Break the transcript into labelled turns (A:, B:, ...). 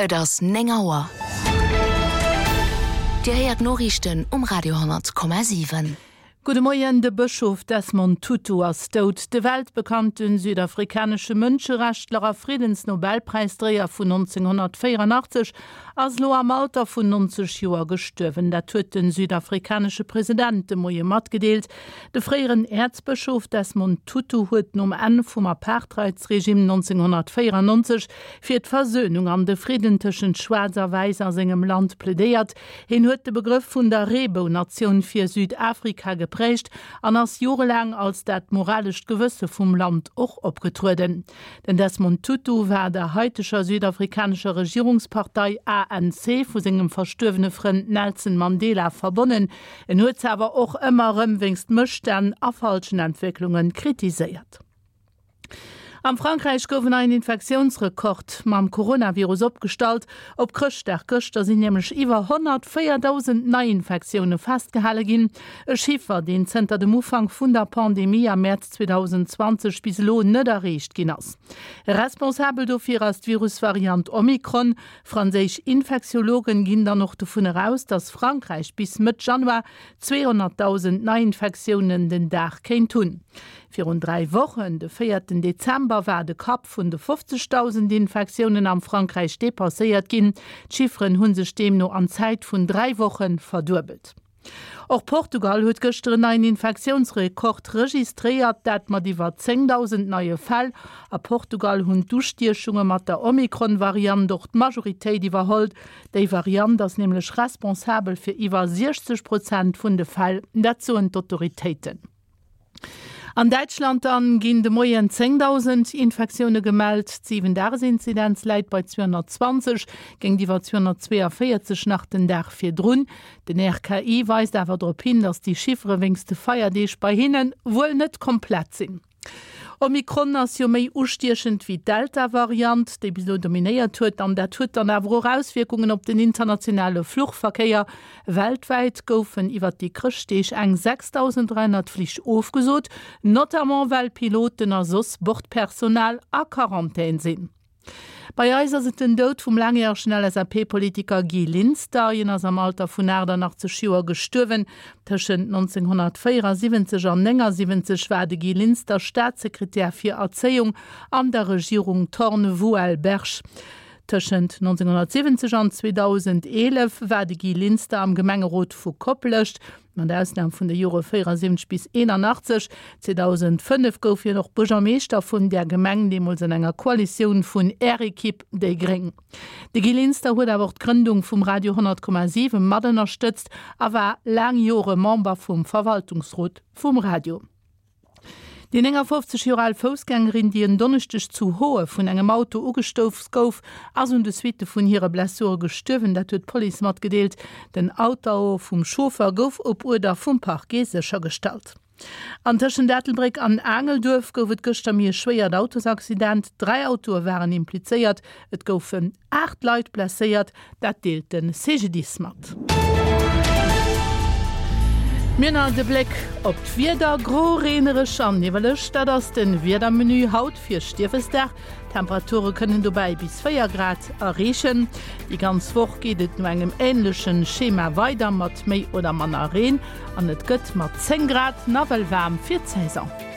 A: Et ass 9 Auer. Dir héiert d'Noriichten um Radio 10,7.
B: Gudde Moien, De Bëschof Desmond Tutu ass dout. De weltbekannte südafrikanesche Mënscherechtler a Friddensnobelpräisdréier vun 1984 ass elo am Alter vun 90 Joer gestuerwen. Dat huet de südafrikanesche President de Moie matgedeelt. De fréieren Äerzbëschof Desmond Tutu huet nom Enn vum Apartheidsregime 1994 fir d'Versönung an de Fridden tëschent Schwaarz a Wäiss a sengem Land plädéiert. Hien huet de Begrëff vun der Reebounatioun fir Südafrika geprägt an ass jorelaang als dat moralescht Gewësse vum Land och opgetrueden. Den Desmond Tutu war der haiteger südafrikanescher Regierungspartei ANC vu sengem verstuerwene Frënd Nelson Mandela verbonnen. En huet se awer och ëmmer erëm wéinst Mësstänn a falschen Entwécklunge kritiséiert. Am Frankräich gouf en neien Infektiounsrekord mam Coronavirus opgestallt. Op Chrëschtdag gëschter sinn nämlech iwwer 104.000 Neiinfektioune festgehale ginn. E Chiffer, deen zënter dem Ufank vun der Pandemie am Mäerz 2020 bis elo net erreecht ginn ass. Responsabel dofir ass d'Virusvariant Omikron. Franséisch Infektiologen ginn dann och dovun eraus, datt Frankräich bis Mëtt Januar 200.000 Neiinfektiounen den Dag kéint hunn. Virun 3 Wochen, de véierten Dezember, war de Kapp vun de 50.000 Infektiounen am Frankräich depasséiert ginn. D'Chifferen hu sech deemno an Zäit vun 3 Woche verduebelt. Och Portugal huet gëschter en neien Infektiounsrekord registréiert, dat mat iwwer 10.000 neie Fäll. A Portugal hunn d'Ustiechunge mat der Omikron-Variant och d'Majoritéit iwwerholl. Déi Variant ass nämlech responsabel fir iwwer 60 Prozent vun de Fäll, dat soen d'Autoritéiten. An Däitschland dann ginn de Moien 10.000 Infektioune gemellt. D'Siwen-Dages-Inzidenz läit bei 220, géintiwwer 242 nach den Dag virdrun. Den RKI weist awer drop hin, datt déi Chiffere wéinst de Feierdeeg bei hinne wuel net komplett sinn. Omikron ass jo méi ustiechend wéi d'Delta-Variant, déi bis elo dominéiert huet. An dat huet dann awer och Auswierkungen op den internationale Fluchverkéier. Weltwäit goufen iwwer déi Chrëschtdeeg eng 6.300 Flich ofgesot, notamment well Piloten a soss Bordpersonal a Quarantän sinn. Bei eis ass et den Doud vum laangjäregen LSAP-Politiker Guy Linster. Hien ass am Alter vun 88 Joer gestuerwen. Tëschent 1974 an 79 war de Guy Linster Staatssekretär fir Erzéiung an der Regierung Thorn-Vouel-Berg. Tëschent 1970 an 2011 war de Guy Linster am Gemengerot vu Koplescht. Mat Ausnam vun de Jore 74 bis 81. 2005 gouf hien och Buergermeeschter vun där Gemeng, deemools an enger Koalitioun vun Är Ekipp, déi gréng. De Guy Linster huet awer och d'Grëndung vum Radio 100,7 mat ënnerstëtzt a war laang Jore Member vum Verwaltungsrot vum Radio. Déi 59 Joer al Foussgängerin, déi en Donneschdeg zu Hoe vun engem Auto ugestouss gouf, ass un de Suitte vun hire Blessure gestuerwen. Dat huet d'Police matgedeelt. Den Autoo vum Chauffer gouf op Uerder vum Parquet séchergestallt. An tëschent Ettelbréck an Aangelduerf gouf et gëschter méi e schwéiert Autosaccident. 3 Autoe waren implizéiert. Et goufen 8 Leit blesséiert, dat deelt de CGDIS mat. Mir nach de Bléck op d'Wieder, Gro, reenereg an niwweleg, dat ass de Wiedermenu haut fir Stiefesdag. D'Temperature kënnen dobäi bis 4 Grad erreechen. Déi ganz Woch geet et no engem änleche Schema weider, mat méi oder manner Reen, an et gëtt mat 10 Grad nawell waarm fir d'Saison.